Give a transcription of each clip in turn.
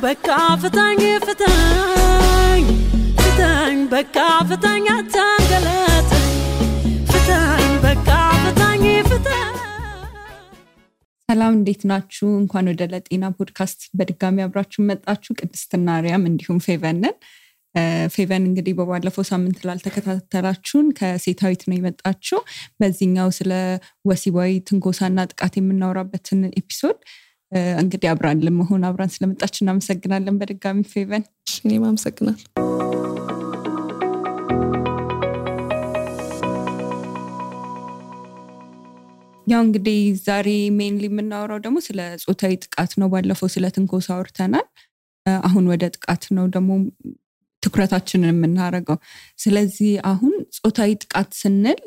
በቃ ፍታኝ በቃ ፍታኝ አታንገላታኝ ፍታኝ በቃ ፍታኝ ሰላም እንዴት ናችሁ እንኳን ወደ ለጤና ፖድካስት በድጋሚ አብራችሁ መጣችሁ ቅድስትና አርያም እንዲሁም ፌቨንን ፌቨን እንግዲህ በባለፈው ሳምንት ላልተከታተላችሁን ከሴታዊት ነው የመጣችሁ በዚህኛው ስለ ወሲባዊ ትንኮሳና ጥቃት የምናወራበትን ኤፒሶድ እንግዲህ አብራን ለመሆን አብራን ስለመጣችሁ እናመሰግናለን በድጋሚ ፌቨን እኔም አመሰግናለሁ ያው እንግዲህ ዛሬ ሜንሊ የምናወራው ደግሞ ስለ ጾታዊ ጥቃት ነው ባለፈው ስለ ትንኮሳ አውርተናል አሁን ወደ ጥቃት ነው ደግሞ ትኩረታችንን የምናደርገው ስለዚህ አሁን ጾታዊ ጥቃት ስንል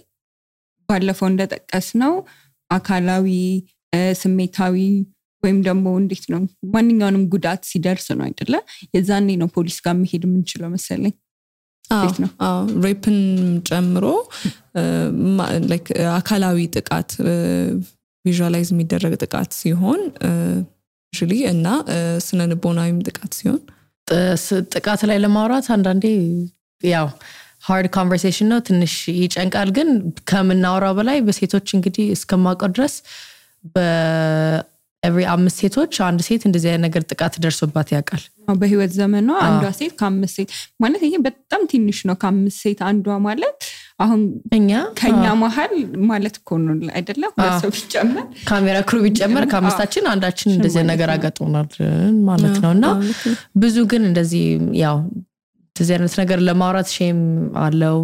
ባለፈው እንደጠቀስነው አካላዊ ስሜታዊ ወይም ደግሞ እንዴት ነው ማንኛውንም ጉዳት ሲደርስ ነው አይደለ የዛኔ ነው ፖሊስ ጋር መሄድ የምንችለው መሰለኝ ሬፕን ጨምሮ ላይክ አካላዊ ጥቃት ቪዥዋላይዝ የሚደረግ ጥቃት ሲሆን ዩዥሊ እና ስነልቦናዊም ጥቃት ሲሆን ጥቃት ላይ ለማውራት አንዳንዴ ያው hard conversation ነው ትንሽ ይጨንቃል ግን ከምናወራው በላይ በሴቶች እንግዲህ እስከማውቀው ድረስ every 5 ሴቶች አንድ ሴት እንደዚህ አይነት ነገር ጥቃት ደርሶባት ያውቃል በህይወት ዘመኗ አንዷ ሴት ከ5 ሴት ማለት ይሄ በጣም ትንሽ ነው ከ5 ሴት አንዷ ማለት አሁን ከኛ መሃል ማለት እኮ ነው አይደለ ሰው ቢጨመር ካሜራ ክሩ ቢጨመር ከአምስታችን አንዳችን እንደዚህ ነገር አጋጥሞናል ማለት ነውና ብዙ ግን እንደዚህ ያው እንደዚህ አይነት ነገር ለማውራት ሼም አለው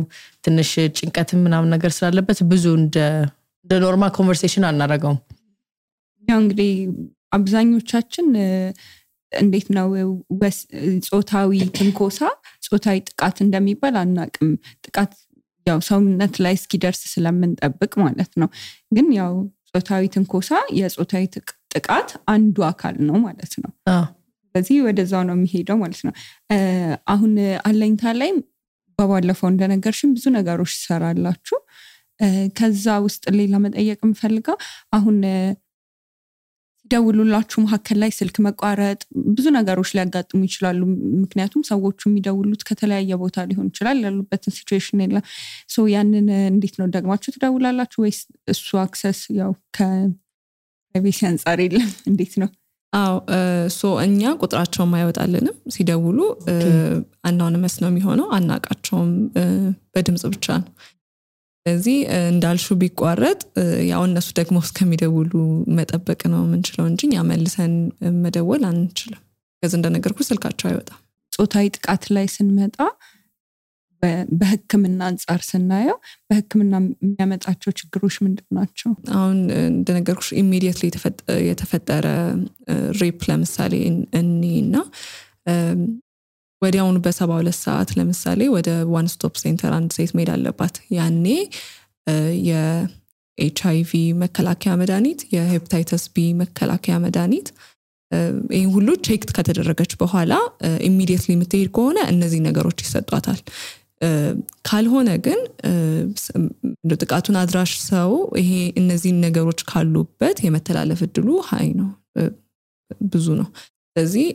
ትንሽ ጭንቀትም ምናምን ነገር ስላለበት ብዙ እንደ ኖርማል ኮንቨርሴሽን አናረጋውም ያው እንግዲህ አብዛኞቻችን እንዴት ነው ጾታዊ ትንኮሳ ጾታዊ ጥቃት እንደሚባል አናቅም ጥቃት ያው ሰውነት ላይ እስኪደርስ ስለምንጠብቅ ማለት ነው ግን ያው ጾታዊ ትንኮሳ የጾታዊ ጥቃት አንዱ አካል ነው ማለት ነው ስለዚህ ወደዛው ነው የሚሄደው ማለት ነው አሁን አለኝታ ላይ በባለፈው እንደነገርሽም ብዙ ነገሮች ይሰራላችሁ ከዛ ውስጥ ሌላ መጠየቅ የምፈልገው አሁን ደውሉላችሁ መሐከል ላይ ስልክ መቋረጥ ብዙ ነገሮች ሊያጋጥሙ ይችላሉ ምክንያቱም ሰዎቹ የሚደውሉት ከተለያየ ቦታ ሊሆን ይችላል ያሉበትን ሲቹዌሽን የለም ሶ ያንን እንዴት ነው ደግማችሁ ትደውላላችሁ ወይስ እሱ አክሰስ ያው ከፕራይቬሲ አንፃር የለም እንዴት ነው ሶ እኛ ቁጥራቸውን ማይወጣልንም ሲደውሉ አናውንመስ ነው የሚሆነው አናቃቸውም በድምጽ ብቻ ነው ስለዚህ እንዳልሹ ቢቋረጥ ያው እነሱ ደግሞ እስከሚደውሉ መጠበቅ ነው የምንችለው እንጂ ያ መልሰን መደወል አንችልም ከዛ እንደነገርኩ ስልካቸው አይወጣም ጾታዊ ጥቃት ላይ ስንመጣ በህክምና አንፃር ስናየው በህክምና የሚያመጣቸው ችግሮች ምንድናቸው አሁን እንደነገርኩሽ ኢሚዲየትሊ የተፈጠረ ሬፕ ለምሳሌ እኒና ወዲያውኑ በ72 ሰዓት ለምሳሌ ወደ ዋን ስቶፕ ሴንተር አንድ ሴት መሄድ አለባት ያኔ የኤችአይቪ መከላከያ መድኃኒት የሄፓታይተስ ቢ መከላከያ መድኃኒት ይሄን ሁሉ ቼክ ከተደረገች በኋላ ኢሚዲየትሊ የምትሄድ ከሆነ እነዚህ ነገሮች ይሰጧታል ካልሆነ ግን ጥቃቱን አድራሽ ሰው ይሄ እነዚህ ነገሮች ካሉበት የመተላለፍ እድሉ ሃይ ነው ብዙ ነው ስለዚህ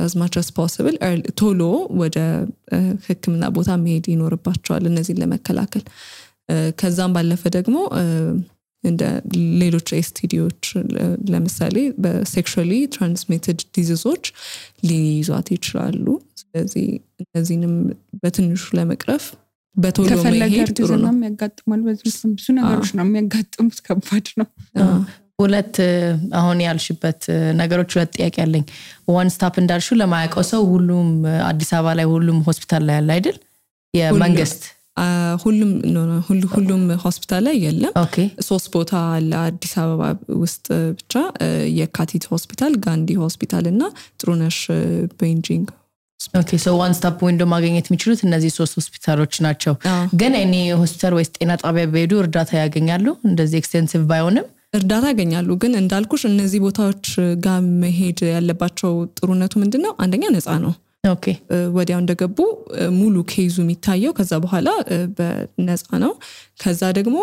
as much as possible ቶሎ ወደ ህክምና ቦታ መሄድ ይኖርባቸዋል እነዚህን ለመከላከል ከዛም ባለፈ ደግሞ እንደ ሌሎች ኤስቲዲዎች ለምሳሌ በሴክሹዋሊ ትራንስሚትድ ዲዚዞች ሊይዟት ይችላሉ ስለዚህ እነዚህንም በትንሹ ለመቅረፍ በቶሎ መሄድ ጥሩ ነው የሚያጋጥማል በዚህ ብዙ ነገሮች ነው የሚያጋጥሙት ከባድ ነው ሁለት አሁን ያልሽበት ነገሮች ሁለት ጥያቄ አለኝ ዋን ስታፕ እንዳልሹ ለማያውቀው ሰው ሁሉም አዲስ አበባ ላይ ሁሉም ሆስፒታል ላይ ያለ አይደል የመንግስት ሁሉም ሆስፒታል ላይ የለም ሶስት ቦታ አለ አዲስ አበባ ውስጥ ብቻ የካቲት ሆስፒታል ጋንዲ ሆስፒታል እና ጥሩነሽ ቤንጂንግ ኦኬ ሶ ዋን ስታፕ ዊንዶ ማግኘት የሚችሉት እነዚህ ሶስት ሆስፒታሎች ናቸው ግን እኔ ሆስፒታል ወይስ ጤና ጣቢያ በሄዱ እርዳታ ያገኛሉ እንደዚህ ኤክስቴንሲቭ ባይሆንም እርዳታ ያገኛሉ ግን እንዳልኩሽ እነዚህ ቦታዎች ጋር መሄድ ያለባቸው ጥሩነቱ ምንድነው አንደኛ ነፃ ነው ኦኬ ወዲያው እንደገቡ ሙሉ ኬዙ የሚታየው ከዛ በኋላ በነፃ ነው ከዛ ደግሞ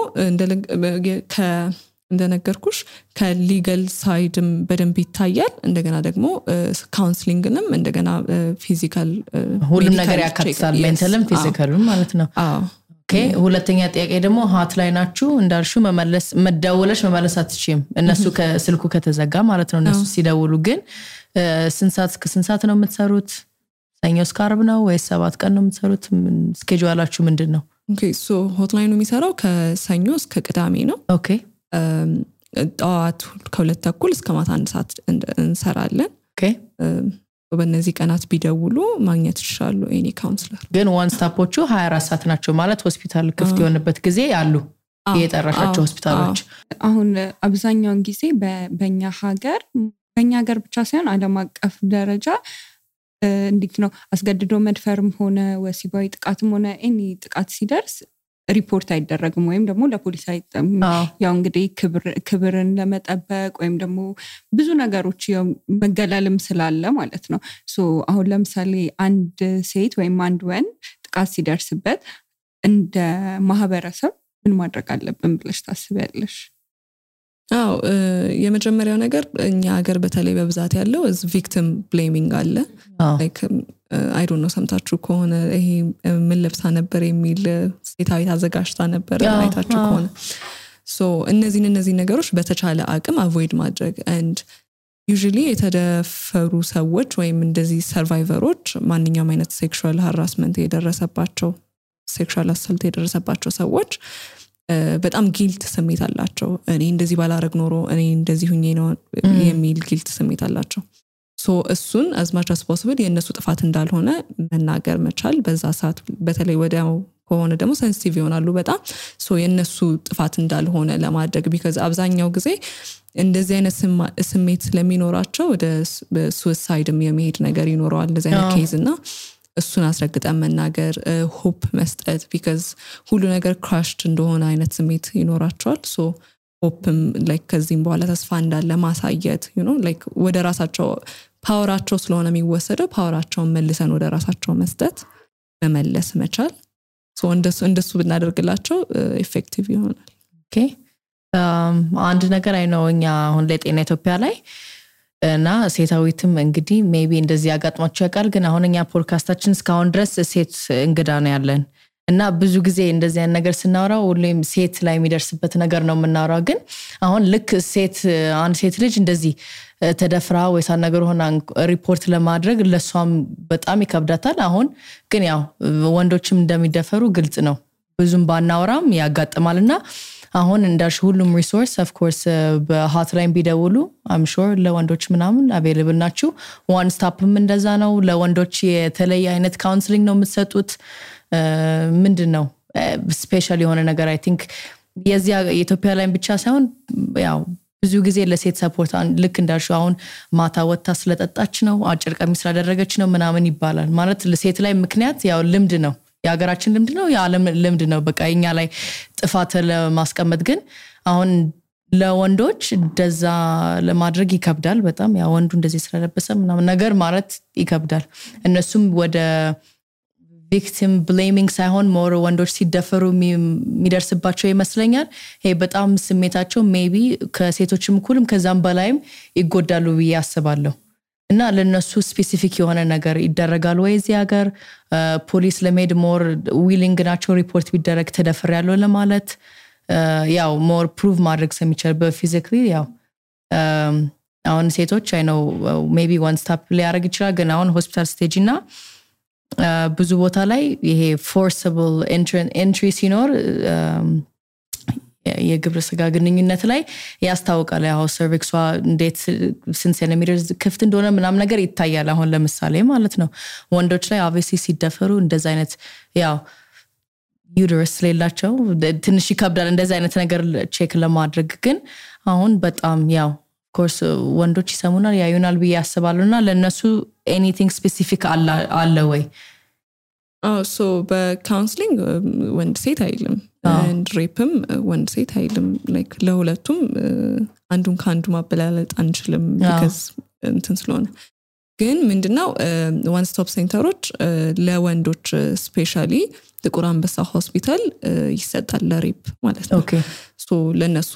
እንደነገርኩሽ ከሊጋል ሳይድም በደንብ ይታያል እንደገና ደግሞ ካውንስሊንግንም እንደገና ፊዚካል ሁሉም ነገር ያካትታል ሜንታልም ፊዚካልም ማለት ነው ኦኬ ሁለተኛ ጥያቄ ደግሞ ሆትላይናችሁ እንዳልሹ መደወለሽ መመለስ አትችይም እነሱ ከስልኩ ከተዘጋ ማለት ነው እነሱ ሲደውሉ ግን ስንት ሰዓት ነው የምትሰሩት ሰኞ እስከ ዓርብ ነው ወይስ 7 ቀን ነው የምትሰሩት ስኬጁላችሁ ምንድነው ኦኬ ሶ ሆትላይኑ የሚሰራው ከሰኞ እስከ ቅዳሜ ነው ኦኬ ጠዋት ከ2:30 እስከ ማታ 1 ሰዓት እንሰራለን ኦኬ በእነዚህ ቀናት ቢደውሉ ማግኘት ይችላሉ ኤኒ ካውንስለር ግን ዋን ስታፖቹ 24 ሰዓት ናቸው ማለት ሆስፒታል ክፍት የሆነበት ጊዜ አሉ የጠራሻቸው ሆስፒታሎች አሁን አብዛኛውን ጊዜ በእኛ ሀገር ብቻ ሳይሆን ዓለም አቀፍ ደረጃ እንዴት ነው አስገድዶ መድፈርም ሆነ ወሲባዊ ጥቃትም ሆነ ኤኒ ጥቃት ሲደርስ ሪፖርት አይደረግም ወይም ደግሞ ለፖሊስ አይጠም ያው እንግዲህ ክብርን ለመጠበቅ ወይም ደግሞ ብዙ ነገሮች ያው መገላለም ስላለ ማለት ነው ሶ አሁን ለምሳሌ አንድ ሴት ወይም አንድ ወንድ ጥቃት ሲደርስበት እንደ ማህበረሰብ ምን ማድረግ አለብን ብለሽ ታስቢያለሽ የመጀመሪያው ነገር እኛ ሀገር በተለይ በብዛት ያለው ቪክቲም ብሌሚንግ አለ ላይክ አይ ዶንት ኖ ሰምታችሁ ከሆነ ይሄ ምን ለብሳ ነበር የሚል ሴታዊ አዘጋጅታ ነበር አይታችሁ ከሆነ ሶ እነዚህ ነገሮች በተቻለ አቅም አቮይድ ማድረግ and usually የተደፈሩ ሰዎች ወይም እንደዚህ ሰርቫይቨሮች ማንኛውም አይነት ሴክሹዋል ሃራስመንት የደረሰባቸው ሴክሹዋል አሳልት የደረሰባቸው ሰዎች በጣም ጊልት ስሜት አላቸው እኔ እንደዚህ ባላረግ ኖሮ እኔ እንደዚህ ሁኜ ነው የሚል ጊልት ስሜት አላቸው ሶ እሱን as much as possible የነሱ ጥፋት እንዳልሆነ መናገር መቻል በዛ ሰዓት በተለይ ወዲያው ከሆነ ደግሞ ሴንሲቲቭ ይሆናሉ በጣም ሶ የነሱ ጥፋት እንዳልሆነ ለማድረግ because አብዛኛው ጊዜ እንደዚህ አይነት ስሜት ስለሚኖራቸው ወደ suicideም የመሄድ ነገር ይኖራል እንደዚህ አይነት ኬዝ እና እሱን አስረግጠን መናገር ሆፕ መስጠት because ሁሉ ነገር crushed እንደሆነ አይነት ስሜት ይኖራቸዋል ሶ ሆፕም like ከዚህም በኋላ ተስፋ እንዳለ ማሳየት you know like ወደ ራሳቸው ፓወራቸው ስለሆነ የሚወሰደው ፓወራቸውን መልሰን ወደ ራሳቸው መስጠት መመለስ መቻል ሶ እንደሱ ብናደርግላቸው ኢፌክቲቭ ይሆናል ኦኬ አንድ ነገር አይ ነው እኛ አሁን ለጤና ኢትዮጵያ ላይ እና ሴታዊትም እንግዲህ ሜቢ እንደዚህ ያጋጥማቸው ያቃል ግን አሁን እኛ ፖድካስታችን እስካሁን ድረስ ሴት እንግዳ ነው ያለን እና ብዙ ጊዜ እንደዚህ አይነት ነገር ስናወራው ሁሌም ሴት ላይ የሚደርስበት ነገር ነው የምናወራው ግን አሁን ልክ አንድ ሴት ልጅ እንደዚህ ተደፍራ ወይስ ነገር ሆና ሪፖርት ለማድረግ ለሷም በጣም ይከብዳታል አሁን ግን ያው ወንዶችም እንደሚደፈሩ ግልጽ ነው ብዙም ባናወራም ያጋጥማልና አሁን እንዳልሽ ሁሉም ሪሶርስ ኦፍ ኮርስ በሆትላይን ቢደውሉ I'm sure ለወንዶች ምናምን አቬሌብል ናችሁ ዋን ስቶፕም እንደዛ ነው ለወንዶች የተለየ አይነት ካውንስሊንግ ነው የምትሰጡት ምንድነው ስፔሻል የሆነ ነገር I think የዚያ ኢትዮጵያ ላይ ብቻ ሳይሆን ያው ብዙ ጊዜ ለሴት ሰፖርት ልክ እንዳልሽ አሁን ማታ ወጣ ስለጠጣች ነው አጭር ቀሚስ ስላደረገች ነው ምናምን ይባላል ማለት ለሴት ላይ ምክንያት ያው ልምድ ነው የሀገራችን ልምድ ነው የዓለም ልምድ ነው በቃ እኛ ላይ ጥፋት ለማስቀመጥ ግን አሁን ለወንዶች እንደዛ ለማድረግ ይከብዳል በጣም ያው ወንዱ እንደዚህ ስለለበሰ ምናምን ነገር ማለት ይከብዳል እነሱም ወደ victim blaming ሳይሆን ሞር ወንዶች ሲደፈሩ የሚደርስባቸው ይመስለኛል ይሄ በጣም ስሜታቸው ሜቢ ከሴቶችም እኩልም ከዛም በላይም ይጎዳሉ ብዬ አስባለሁ እና ለነሱ ስፔሲፊክ የሆነ ነገር ይደረጋል ወይ እዚህ ሀገር ፖሊስ ለሜድ ሞር ዊሊንግ ናቸው ሪፖርት ቢደረግ ተደፈር ያለው ለማለት ያው ሞር ፕሩቭ ማድረግ ስለሚቻል በፊዚካሊ ያው አሁን ሴቶች አይ ነው ሜቢ ዋን ስታፕ ሊያረግ ይችላል ግን አሁን ሆስፒታል ስቴጅ እና ብዙ ቦታ ላይ ይሄ ፎርሰብል ኤንትሪ ሲኖር የግብረ ስጋ ግንኙነት ላይ ያስታውቃል ያው ሰርቪክሷ እንዴት ስንት ሴንቲሜትር ክፍት እንደሆነ ምናም ነገር ይታያል አሁን ለምሳሌ ማለት ነው ወንዶች ላይ obviously ሲደፈሩ እንደዛ አይነት ያው ዩተረስ ሌላቸው ትንሽ ይከብዳል እንደዛ አይነት ነገር ቼክ ለማድረግ ግን አሁን በጣም ያው ኮርስ ወንዶች ይሰሙናል ያዩናል ብዬ ያስባሉና ለነሱ anything specific አለ ወይ so በካውንስሊንግ ወንድ ሴት አይልም and rapeም ወንድ ሴት አይልም like ለሁለቱም አንዱን ካንዱ ማበላለጥ አንችልም because እንትን ስለሆነ ግን ምንድነው ዋን ስቶፕ ሴንተሮች ለወንዶች ስፔሻሊ ጥቁር አንበሳ ሆስፒታል ይሰጣል ለሬፕ ማለት ነው ሶ ለነሱ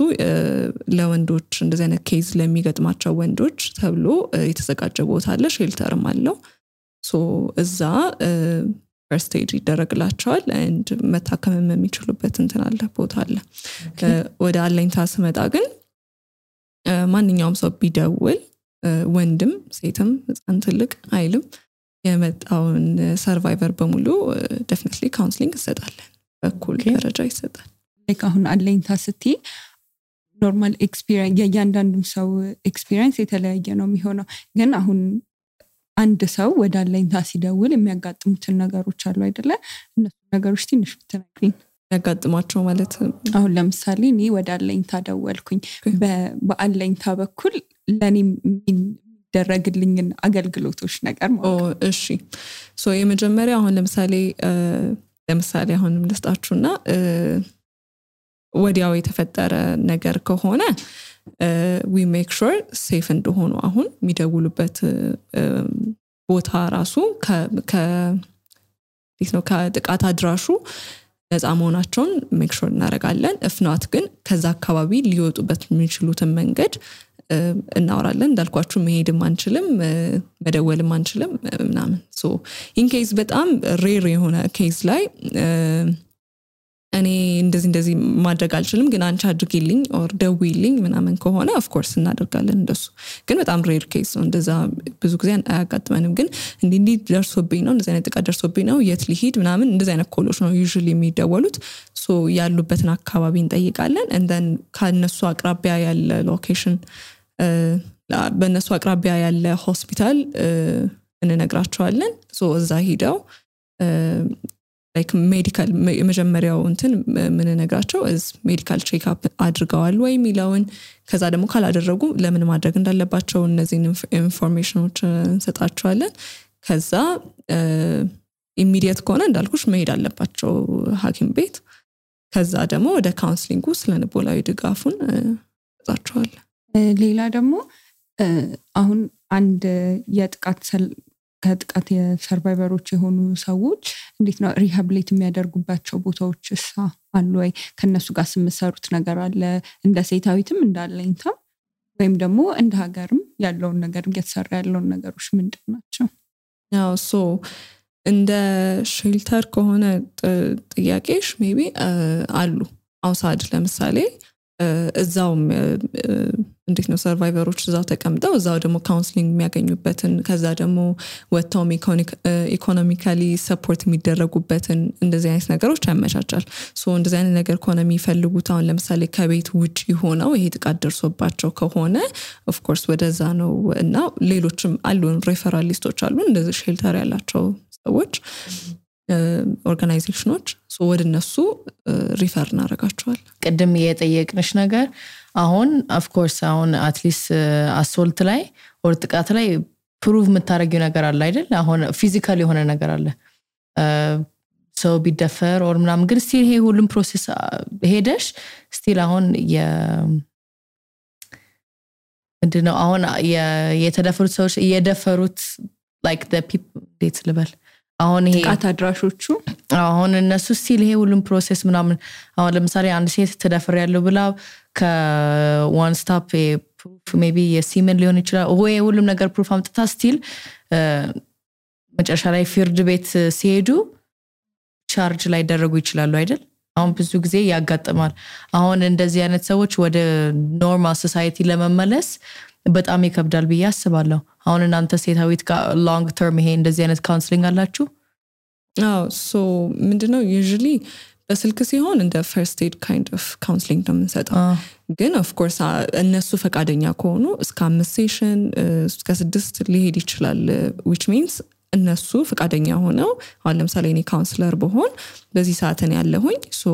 ለወንዶች እንደዚህ አይነት ኬዝ ለሚገጥማቸው ወንዶች ተብሎ የተዘጋጀ ቦታ አለ ሼልተርም አለው ሶ እዛ first aid ይደረግላቸዋል and መታከም የሚችሉበት እንትን አለ ቦታ አለ ወደ አለኝታ ስመጣ ግን ማንኛውም ሰው ቢደውል ወንድም ሴትም ህፃን ትልቅ አይልም የመጣውን ሰርቫይቨር በሙሉ definitely counseling ይሰጣለን በኩል ደረጃ ይሰጣል like አሁን አለኝታ ስትይ ኖርማል ኤክስፒሪየንስ የእያንዳንዱ ሰው ኤክስፒሪየንስ የተለያየ ነው የሚሆነው ግን አሁን አንድ ሰው ወደ አለኝታ ሲደውል የሚያጋጥሙትን ነገሮች አሉ አይደለ እነሱ ነገሮች ትንሽ ብትነግሪኝ ያጋጥማቸው ማለት አሁን ለምሳሌ እኔ ወደ አለኝታ ደወልኩኝ በአለኝታ በኩል ለኔ የሚደረግልኝን አገልግሎቶች ነገር ማለት እሺ ሶ የመጀመሪያ አሁን ለምሳሌ አሁንም ልስጣችሁና ወዲያው የተፈጠረ ነገር ከሆነ we make sure safe እንደሆኑ አሁን የሚደውሉበት ቦታ ራሱ ከጥቃት አድራሹ ነፃ መሆናቸውን make sure እናደርጋለን if not ግን ከዛ አካባቢ ሊወጡበት የሚችሉትን መንገድ እናወራለን እንዳልኳችሁ መሄድም አንችልም መደወልም አንችልም ምናምን so in case በጣም ሬር የሆነ ኬዝ ላይ እኔ እንደዚህ ማድረግ አልችልም ግን አንቺ አድርጊልኝ or ደውይልኝ ምናምን ከሆነ of course እናደርጋለን እንደሱ ግን በጣም ሬር ኬዝ ነው እንደዛ ብዙ ጊዜ አያጋጥመንም ግን እንዲህ ደርሶብኝ ነው እንደዚህ አይነት ጥቃት ደርሶብኝ ነው የት ሊሄድ ምናምን እንደዚህ አይነት ኮሎች ነው usually የሚደወሉት so ያሉበትን አካባቢ እንጠይቃለን and then ከነሱ አቅራቢያ ያለ ሎኬሽን በነሱ አቅራቢያ ያለ ሆስፒታል እንነግራቸዋለን so እዛ ሄደው like medical የመጀመሪያው እንትን ምን ነግራቸው is medical check up አድርገዋል ወይ ሚላውን ከዛ ደግሞ ካላደረጉ ለምን ማድረግ እንዳለባቸው እነዚህ ኢንፎርሜሽኖች እንሰጣቸዋለን ከዛ ኢሚዲየት ከሆነ እንዳልኩሽ መሄድ አለባቸው ሐኪም ቤት ከዛ ደግሞ ወደ ካውንስሊንጉ ስለንቦላዊ ድጋፉን እንሰጣቸዋለን ሌላ ደግሞ አሁን አንድ ከጥቃት የሰርቫይቨሮች የሆኑ ሰዎች እንዴት ነው ሪሃብሊት የሚያደርጉባቸው ቦታዎችስ አሉ ወይ ከነሱ ጋር ስምሰሩት ነገር አለ እንደ ሴታዊትም እንዳለኝታ ወይም ደግሞ እንደ ሀገርም ያለውን ነገር እየተሰራ ያለውን ነገሮች ምንድናቸው ያው ሶ እንደ ሼልተር ከሆነ ጥያቄሽ ሜቢ አሉ አውሳድ ለምሳሌ እዛው እንዴት ነው ሰርቫይቨሮች እዛው ተቀምጠው እዛው ደግሞ ካውንስሊንግ የሚያገኙበትን ከዛ ደግሞ ወጣው ኢኮኖሚካሊ ሰፖርት የሚደረጉበትን እንደዚህ አይነት ነገሮች ያመቻቻል ሶ እንደዚህ አይነት ነገር ከሆነ የሚፈልጉት አሁን ለምሳሌ ከቤት ውጪ ሆነው ይሄ ጥቃት ደርሶባቸው ከሆነ ኦፍ ኮርስ ወደዛ ነው እና ሌሎችም አሉን ሬፈራል ሊስቶች አሉ እንደዚህ ሼልተር ያላቸው ሰዎች ኦርጋናይዜሽኖች ሶ ወደነሱ ሪፈር እናደርጋቸዋል ቀደም የጠየቅንሽ ነገር አሁን ኦፍ ኮርስ አሁን አትሊስት አሶልት ላይ or ጥቃት ላይ ፕሩቭ የምታረጊው ነገር አለ አይደል አሁን ፊዚካሊ የሆነ ነገር አለ ሰው ቢደፈር or ምናምን ግን ስቲል ይሄ ሁሉም ፕሮሰስ ሄደሽ ስቲል አሁን ምንድነው አሁን የተደፈሩት ሰዎች እየደፈሩት like the people dates level አሁን ይሄ ጥቃት አድራሾቹ አሁን እነሱ ስቲል ይሄ ሁሉም ፕሮሰስ ምናምን አሁን ለምሳሌ አንድ ሴት ተደፈረ ያለው ብላ ከዋን ስቶፕ ፕሩፍ ሜቢ የሲመን ሊሆን ይችላል ወይ ሁሉም ነገር ፕሩፍ አምጥታ ስቲል መጨረሻ ላይ ፍርድ ቤት ሲሄዱ ቻርጅ ላይ ደረጉ ይችላሉ አይደል አሁን ብዙ ጊዜ ያጋጥማል አሁን እንደዚህ አይነት ሰዎች ወደ ኖርማል ሶሳይቲ ለመመለስ በጣም ይከብዳል ብዬ አስባለሁ አሁን እናንተ ሴታዊት ጋር ሎንግ ተርም ይሄ እንደዚህ አይነት ካውንስሊንግ አላችሁ ሶ ምንድነው usually በስልክ ሲሆን እንደ first aid kind of counseling ነው የምንሰጠው ግን of course እነሱ ፈቃደኛ ከሆኑ እስከ 5 ሴሽን እስከ 6 ሊሄድ ይችላል which means እነሱ ፈቃደኛ ሆነው አሁን ለምሳሌ እኔ ካውንስለር በሆን በዚህ ሰዓት እኔ ያለሁኝ so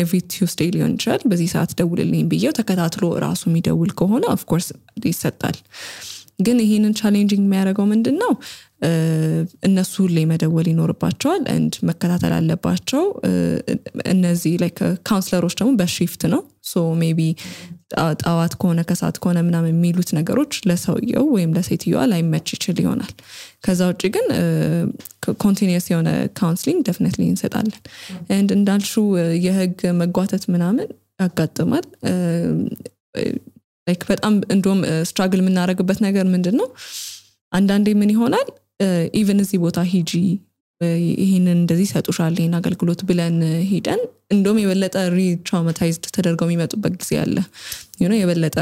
every Tuesday ሊሆን ይችላል በዚህ ሰዓት ደውልልኝ ብዬው ተከታትሎ ራሱ የሚደውል ከሆነ of course ይሰጣል ግን ይሄንን ቻሌንጂንግ የሚያደርገው ምንድነው እነሱ ላይ መደወል ይኖርባቸዋል and መከታተል አለባቸው እነዚህ like ካውንስለሮች ደግሞ በሺፍት ነው so maybe ጣዋት ከሆነ ከሳት ከሆነ ምናምን የሚሉት ነገሮች ለሰውየው ወይም ለሴትዮዋ ላይመች ይችል ይሆናል ከዛ ውጪ ግን ኮንቲኒየስ የሆነ ካውንስሊንግ ዴፊኒትሊ እንሰጣለን and እንዳልሹ የህግ መጓተት ምናምን ያጋጥማል like በጣም እንደውም ስትራግል የምናደርግበት ነገር ምንድነው አንዳንዴ ምን ይሆናል ኢቭን እዚህ ቦታ ሂጂ ይሄንን እንደዚህ ሰጡሻል ይሄን አገልግሎት ብለን ሄደን እንደውም የበለጠ ሪትራውማታይዝድ ተደርገው የሚመጡበት ጊዜ አለ የበለጠ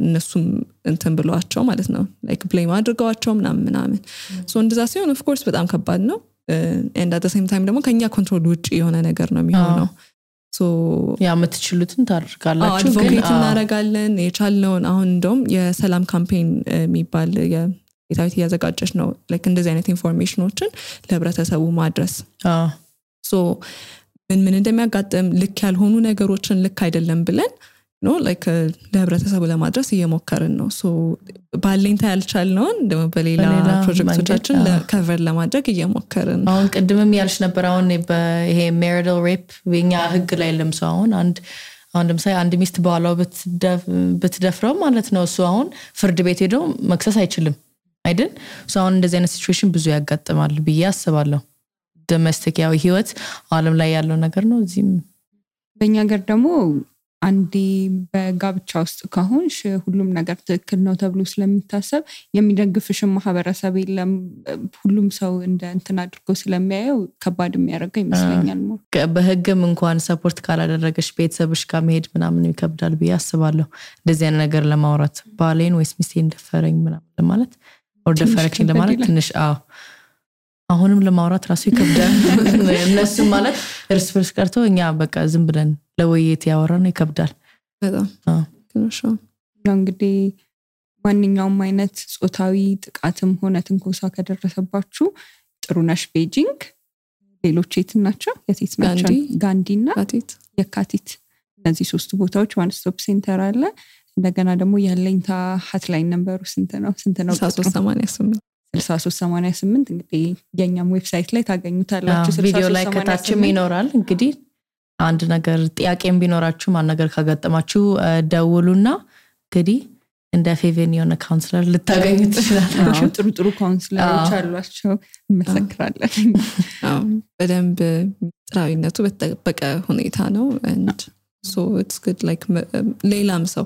እነሱም እንትን ብለዋቸው ማለት ነው like blame አድርገዋቸው ምናምን so እንደዛ ሲሆን of course በጣም ከባድ ነው and at the same time ደግሞ ከኛ ኮንትሮል ውጪ የሆነ ነገር ነው የሚሆነው so የምትችሉትን ታደርጋላችሁ ግን እናደርጋለን የቻልነውን አሁን እንደውም የሰላም ካምፔን የሚባል የታዊት ያዘጋጀች ነው like እንደዚህ አይነት ኢንፎርሜሽኖችን ለህብረተሰቡ ማድረስ so ምን እንደሚያጋጥም ልክ ያልሆኑ ነገሮችን ልክ አይደለም ብለን like ለህብረተሰቡ ለማድረስ እየሞከርን ነው so ባለኝታ ያልቻልነው ደግሞ በሌላ ፕሮጀክቶቻችን ለከቨር ለማድረግ እየሞከርን ነው አሁን ቅድምም ያልሽ ነበር አሁን ይሄ marital rape በእኛ ህግ ላይ ለምሳሌ አንድ ለምሳሌ አንድ ሚስት ባሏ ብትደፍረው ማለት ነው እሱ አሁን ፍርድ ቤት ሄዶ መክሰስ አይችልም አይደል so አሁን እንደዚህ አይነት ሲቹዌሽን ብዙ ያጋጥማል ብዬ አስባለሁ ዶሜስቲክ ያው ህይወት ዓለም ላይ ያለው ነገር ነው እዚህም በእኛ ሀገር ደግሞ አንዴ በጋብቻ ውስጥ ከሆንሽ ሁሉም ነገር ትክክል ነው ተብሎ ስለሚታሰብ የሚደግፍሽ ማህበረሰብ የለም ሁሉም ሰው እንደ እንትን አድርጎ ስለሚያየው ከባድ የሚያደርገው ይመስለኛል ነው በህግም እንኳን ሰፖርት ካላደረገሽ ቤተሰብሽ ጋር መሄድ ምናምን ይከብዳል ብዬ አስባለሁ እንደዚህ አይነት ነገር ለማውራት ባሌን ወይስ ሚስቴን ደፈረኝ ምናምን ለማለት or ደፈረችኝ ለማለት ትንሽ አሁንም ለማውራት ራሱ ይከብዳል እነሱ ማለት እርስ በርስ ቀርቶ እኛ በቃ ዝም ብለን ለወይት ያወራን ይከብዳል በጣም ትንሽ እንግዲህ ማንኛውም አይነት ጾታዊ ጥቃትም ሆነ ትንኮሳ ከደረሰባችሁ ጥሩነሽ ቤጂንግ ሌሎች የት ናቸው የት ናቸው ጋንዲና የካቲት እነዚህ ሶስት ቦታዎች ዋን ስቶፕ ሴንተር አለ እንደገና ደግሞ ያለኝታ ሀትላይን ነምበሩ ስንት ነው 6388 እንግዲህ የኛም ዌብሳይት ላይ ታገኙታላችሁ ቪዲዮ ላይ ከታችም ይኖራል እንግዲህ አንድ ነገር ጥያቄም ቢኖራችሁ ማን ነገር ካጋጠማችሁ ደውሉና እንግዲህ እንደ ፌቨኒዮና ካውንስለር ልታገኙ ትችላላችሁ ጥሩ ካውንስለሮች አሏቸው እንመሰክራለን በደንብ ጥራዊነቱ በተጠበቀ ሁኔታ ነው and so it's good like ሌላም ሰው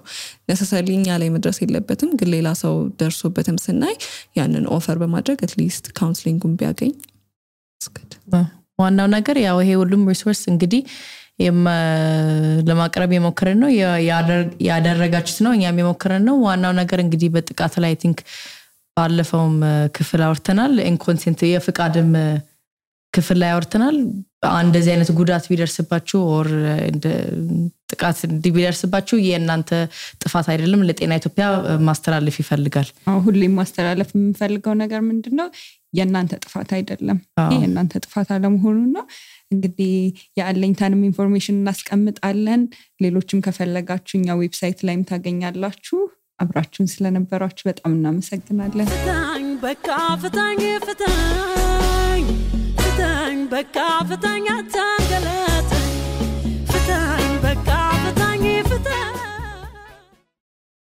necessarily እኛ ላይ መድረስ የለበትም ግን ሌላ ሰው ደርሶበትም ስናይ ያንን ኦፈር በማድረግ at least counseling ቢያገኝ it's good ዋናው ነገር ያው ይሄ ሁሉም ሪሶርስ እንግዲህ ለማቅረብ የሞከረን ነው ያደረጋችሁት ነው እኛም የሞከረን ነው ዋናው ነገር እንግዲህ በጥቃት ላይ I think ባለፈውም ክፍል አውርተናል ኢንኮንሰንት የፍቃድም ክፍል ላይ አውርተናል እንደዚህ አይነት ጉዳት ቢደርስባችሁ or ጥቃት ቢደርስባችሁ የእናንተ ጥፋት አይደለም ለጤና ኢትዮጵያ ማስተላለፍ ይፈልጋል ሁሌም ማስተላለፍ የምፈልገው ነገር ምንድነው የእናንተ ጥፋት አይደለም የእናንተ ጥፋት አለመሆኑ ነው እንግዲህ ያለኝታንም ኢንፎርሜሽን እናስቀምጣለን ሌሎችም ከፈለጋችሁኛ ዌብሳይት ላይም ታገኛላችሁ አብራችሁን ስለነበራችሁ በጣም እናመሰግናለን በቃ ፍታኝ በቃ ፍታኝ አታንገላ